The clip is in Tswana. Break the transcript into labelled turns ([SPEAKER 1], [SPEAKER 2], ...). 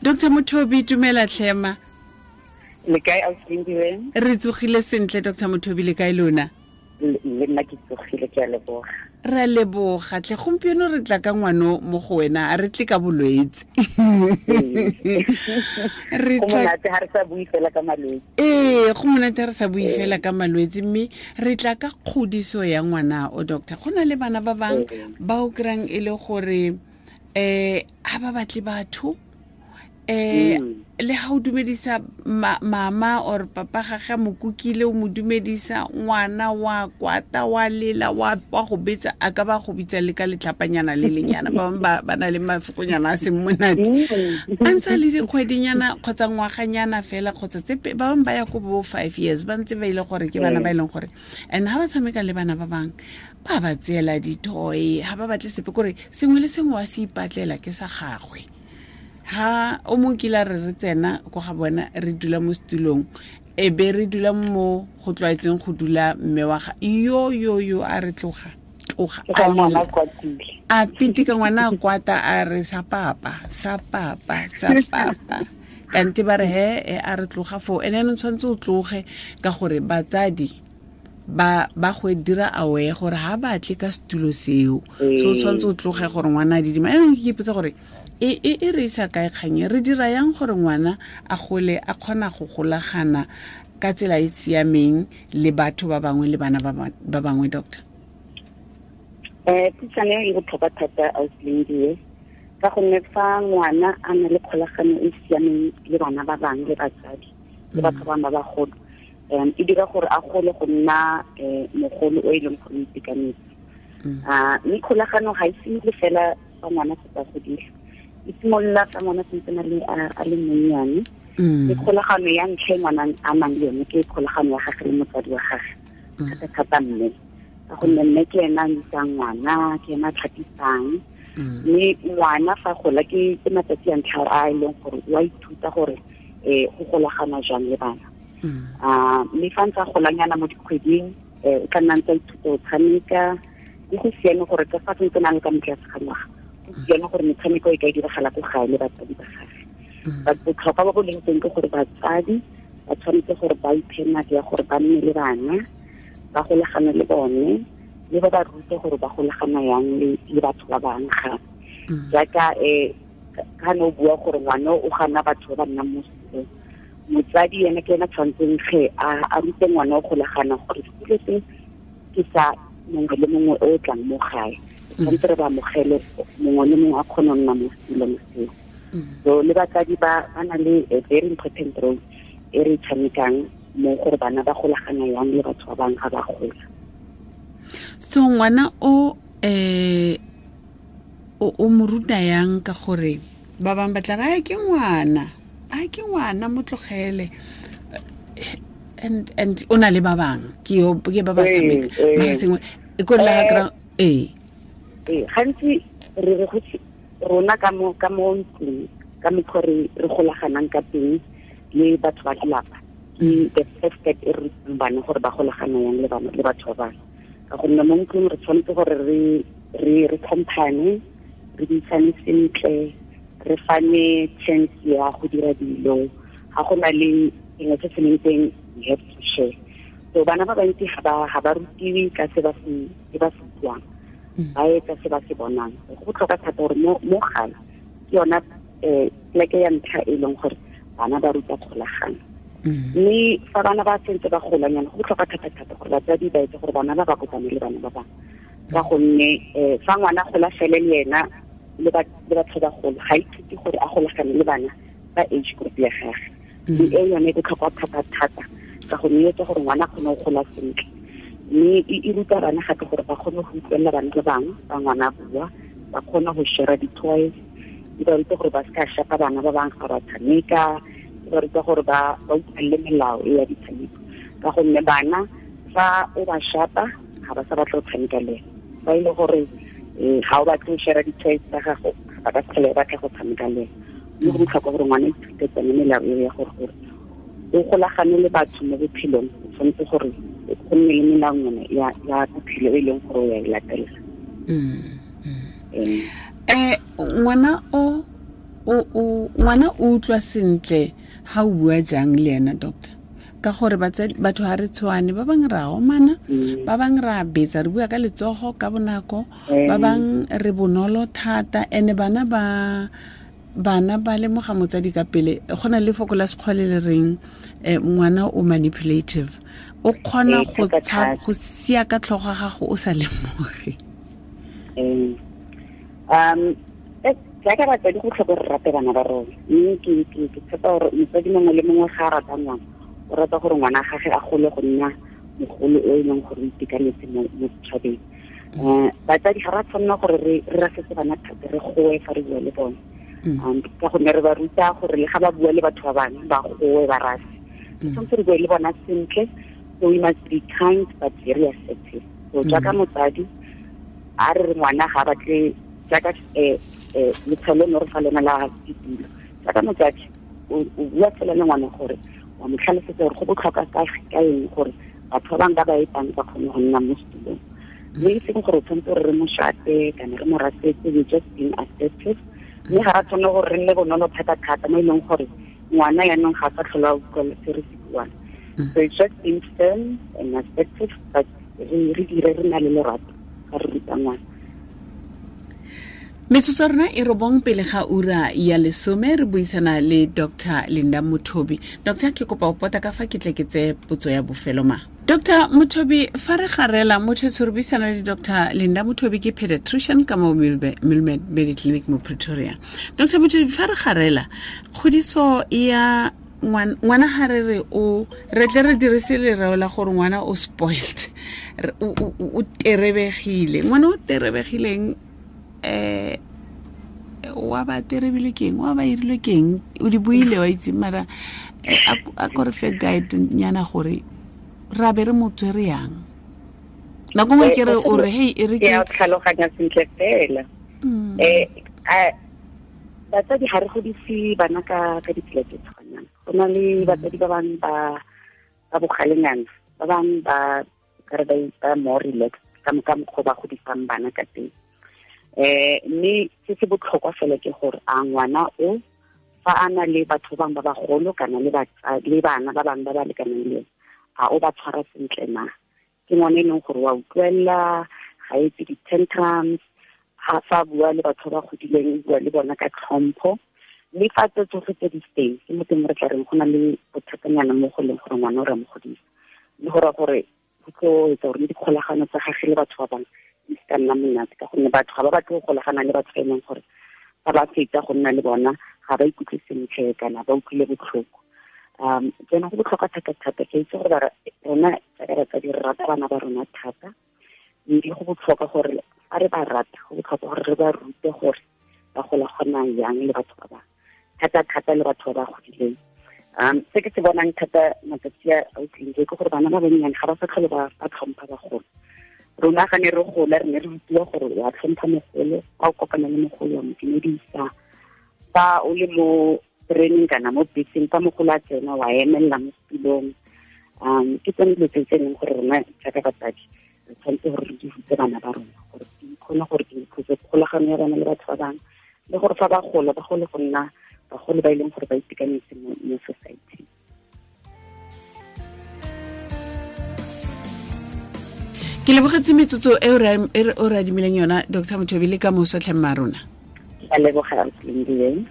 [SPEAKER 1] Dr Mothobi, tumela tlhema.
[SPEAKER 2] Le kae, ausi?
[SPEAKER 1] Re tsogile sentle, Dr Mothobi, le kae lona?
[SPEAKER 2] Le nna ke tsogile, ke a leboga.
[SPEAKER 1] Re leboga tlhe. Gompieno re tla ka ngwano mo go wena, a re tle ka bolwetse.
[SPEAKER 2] Re monate ha re sa bue fela ka malwetse.
[SPEAKER 1] Ee, go monate ha re sa bue fela ka malwetse, mme re tla ka kgodiso ya ngwana o. Doctor, go na le bana ba bangwe ba o kry-ang e le gore ha ba batle batho, le ha o dumedisa mama or papa gage, mokukile o mo dumedisa, ngwana wa kwata, wa lela, wa go betsa, a ka ba go bitsa le ka letlhapanyana le lenyana. Ba bangwe ba na le mafokonyana a seng monate a ntse le dikgwedinyana kgotsa ngwaganyana fela, kgotsa tse ba bangwe ba ya ko bo 5 years ba ntse ba ile gore ke bana ba e leng gore. And ha ba tshameka le bana ba bangwe, ba ba tseela di-toy, ha ba batle sepe, kore sengwe le sengwe wa se ipatlela ke sa gagwe. Ha o mongwe kile a re re tsena ko ga bona, re dula mo setulong, e be re dula mo go tlwaetseng go dula mme wa ga yo yo yo, a re, "Tloga, tloga." A pitika ngwana, a kwata, a re, "Sa papa, sa papa, sa papa." Kante ba re he e a re, "Tloga foo." Ene anong tshwanetse o tloge ka gore batsadi ba go dira aware gore ha batle ka setulo seo, so o tshwanetse o tloge gore ngwana a didima. Anong ke ipotsa gore e re isa kae kganye, re dira yang gore ngwana a gole a kgona go golagana ka tsela e siameng le batho ba bangwe le bana ba bangwe, doctor?
[SPEAKER 2] Puisano e botlhokwa thata, ausi, ka gonne fa ngwana a na le kgolagano e siameng le bana ba bangwe le batsadi le batho ba bangwe ba bagolo, e dira gore a gole go nna mogolo o e leng gore o itekanetse. Mme kgolagano ga e simole fela fa ngwana setse a godile, e simolola fa ngwana sentse a le monnyane. Ke kgolagano ya ntlha e ngwana a nang le yone, ke kgolagano ya gage le motsadi wa gage, thata-thata mme, ka gonne mme ke ena a isang ngwana, ke ena a tlhapisang. Mme ngwana fa gola, ke matsatsi a ntlha a e leng gore o a ithuta gore go golagana jang le bana. Mme fa ntse a golanyana mo dikgweding, o tla nna ntse a ithuta go tshameka. Ke go siame gore ka fa sentse na le ka motlase ga ngwaga, go siame gore metshameko e ka diragala ko gae le batsadi ba gage. But botlhokwa ba bo leng teng ke gore batsadi ba tshwanetse gore ba iphe nako ya gore ba nne le bana, ba golagane le bone, le ba ba rute gore ba golagana yang le batho ba bangwe gape. Jaaka ka ne o bua gore ngwana o gana batho ba ba nnang mo sekolong, motsadi ene ke ena tshwanetseng ge a rute ngwana o golagana gore sekolo se ke sa mongwe le mongwe o tlang mo gae, tshwanetse re ba amogele, mongwe le mongwe a kgone go nna mo setulong seo. So le batsadi ba na le a very important role e re tshamekang mo gore bana ba golagana yang le batho ba bangwe ga ba gola.
[SPEAKER 1] So ngwana o o mo ruta yang? Ka gore ba bangwe ba tla re, "Ai, ke ngwana, ai, ke ngwana, mo tlogele," and o na le ba bangwe, ke yo ke ba ba tshameka mara sengwe e ko la kra ee.
[SPEAKER 2] Ee, gantsi re re go rona ka mo ntlong, ka mokgwa re golaganang ka teng le batho ba lelapa, ke the first step e re rutang bana gore ba golagana yang le bana le batho ba bangwe. Ka gonne mo ntlong re tshwanetse gore re tlhomphane, re buisane sentle, re fane chance ya go dira dilo. Ga go na le sengwe se se leng teng, we have to share. So bana ba bantsi ga ba rutiwe ka se ba se buang, ba etsa se ba se bonang. Go botlhokwa thata gore mo gae ke yona pleke ya ntlha e leng gore bana ba ruta kgolagano. Mme fa bana ba sentse ba golanyana, go botlhokwa thata-thata gore batsadi ba etse gore bana ba ba kopane le bana ba bangwe, ka gonne fa ngwana gola fele le ena le batho ba golo, ga ithute gore a golagane le bana ba age group ya gage. Mme e yone e botlhokwa thata-thata, ka gonne e etsa gore ngwana a kgone go gola sentle, mme e ruta bana gape gore ba kgone go utlwelela bana ba bangwe ba ngwana a bua, ba kgone go share di-toys. E ba ruta gore ba se ka shapa bana ba bangwe ga ba tshameka. E ba ruta gore ba utlwelele melao e ya ditshameko, ka gonne bana fa o ba shapa, ga ba sa batla go tshameka le ena. Fa e le gore ga o batle go share di-toys tsa gago, ba ka se tlhole ba batla go tshameka le ena. Mme go botlhokwa gore ngwana ithute tsone melao eo ya gore o golagane le batho mo bophelong, o tshwanetse gore go nne le melaonyana ya bophelo e leng gore o ya e latela.
[SPEAKER 1] Ngwana o O ngwana o utlwa sentle ha o bua jang le ena, doctor? Ka gore batho ha re tshwane, ba bang ra omana, ba bang ra betsa, re bua ka letsogo ka bonako, ba bang re bonolo thata. Ene bana ba lemoga motsadi ka pele. Go na le foko la sekgwale le reng ngwana o manipulative, o kgona go sia ka tlhogo ga gago o sa lemoge.
[SPEAKER 2] Jaaka batsadi go tlhoka re rate bana ba rona, mme ke tshepa gore motsadi mongwe le mongwe ga a rata ngwana, o rata gore ngwana gage a gole go nna mogolo o e leng gore o itekanetse mo setšhabeng. Batsadi ga ra tshwanela gore re rasetse bana thata, re goe fa re bua le bone, ka gonne re ba ruta gore le ga ba bua le batho ba bangwe ba goe ba rase. Re tshwanetse re bue le bona sentle. So we must be kind but very assertive. So jaaka motsadi a re re ngwana ga batle jaaka letshwalo no re fa lona la ditulo, jaaka motsadi o bua fela le ngwana gore wa mo tlhalosetsa gore go botlhokwa ka eng gore batho ba bangwe ba ba etang ba kgone go nna mo setulong, mme e seng gore o tshwanetse gore re mo shate kana re mo rasetse. We just being assertive, mme ga ra tshwanela gore re nne bonolo thata-thata mo e leng gore ngwana yaanong ga a sa tlhola a utlwa se re se buang. So it's just being firm and assertive, but re dire re na le lerato ga re ruta ngwana.
[SPEAKER 1] Metsotso rona e robong pele ga ura ya 10, re buisana le Dr. Linda Mothobi. Doctor, ke kopa o pota ka fa ke tle ke tse potso ya bofelo ma. Dr. Mothobi, fa re garela motho re buisana le Dr. Linda Mothobi, ke pediatrician ka mo Milmed Mediclinic mo Pretoria. Dr. Mothobi, fa re garela kgodiso ya ngwana ga re re o re tle re dirise lereo la gore ngwana o spoiled, o terebegile. Ngwana o terebegileng wa ba terebile keng, wa ba irilwe keng, o di buile wa itse, mara a ko re fe guide nyana gore ra be re mo tswere yang. Nako nngwe ke re o re hey e re
[SPEAKER 2] ke a tlhaloganya sentle fela. Batsadi ga re godise bana ka ditsela tse tshwanang. Go na le batsadi ba bangwe ba bogalenyana, ba bangwe ba kare ba more relaxed ka mokgwa ba godisang bana ka teng. Mme se se botlhokwa fela ke gore a ngwana o fa a na le batho bangwe ba bagolo kana le bana ba bangwe ba ba lekanang le ene, a o ba tshwara sentle na? Ke ngwana e leng gore wa utlwella, ga etse di-tantrums, ga fa bua le batho ba godileng o bua le bona ka tlhompho. Mme fa tse tsotlhe tse di teng, ke mo teng re tla reng go na le bothatanyana mo go leng gore ngwana o re mo godisa, le go raya gore go tlo etsa gore le dikgolagano tsa gagwe le batho ba bangwe di se ka nna monate, ka gonne batho ga ba batle go golagana le batho ba e leng gore fa ba fetsa go nna le bona ga ba ikutlwe sentle kana ba utlwile botlhoko. Jaanong go botlhokwa thata-thata. Ke itse gore rona jaaka batsadi re rata bana ba rona thata, mme go botlhokwa gore fa re ba rata, go botlhokwa gore re ba rute gore ba golagana yang le batho ba bangwe, thata-thata le batho ba ba godileng. Se ke se bonang thata matsatsi a utlwileng ke gore bana ba bannyane ga ba sa tlhole ba tlhompha bagolo. Rona ga ne re gola re ne re rutiwa gore wa tlhompha mogolo, fa o kopana le mogolo wa mo dumedisa, fa o le mo tereneng kana mo beseng fa mogolo a tsena wa emelela mo setulong. Ke tsone dilo tse e leng gore rona jaaka batsadi re tshwanetse gore re di rute bana ba rona gore di kgone gore di improve kgolagano ya bana le batho ba bangwe, le gore fa ba gola ba gole go nna bagolo ba e leng gore ba itekanetse mo society.
[SPEAKER 1] Ke lebogetse metsotso e o re adimileng yona, Dr. Mothobi, le ka moso tlhe mma rona.
[SPEAKER 2] Ke a leboga, Lindiwe.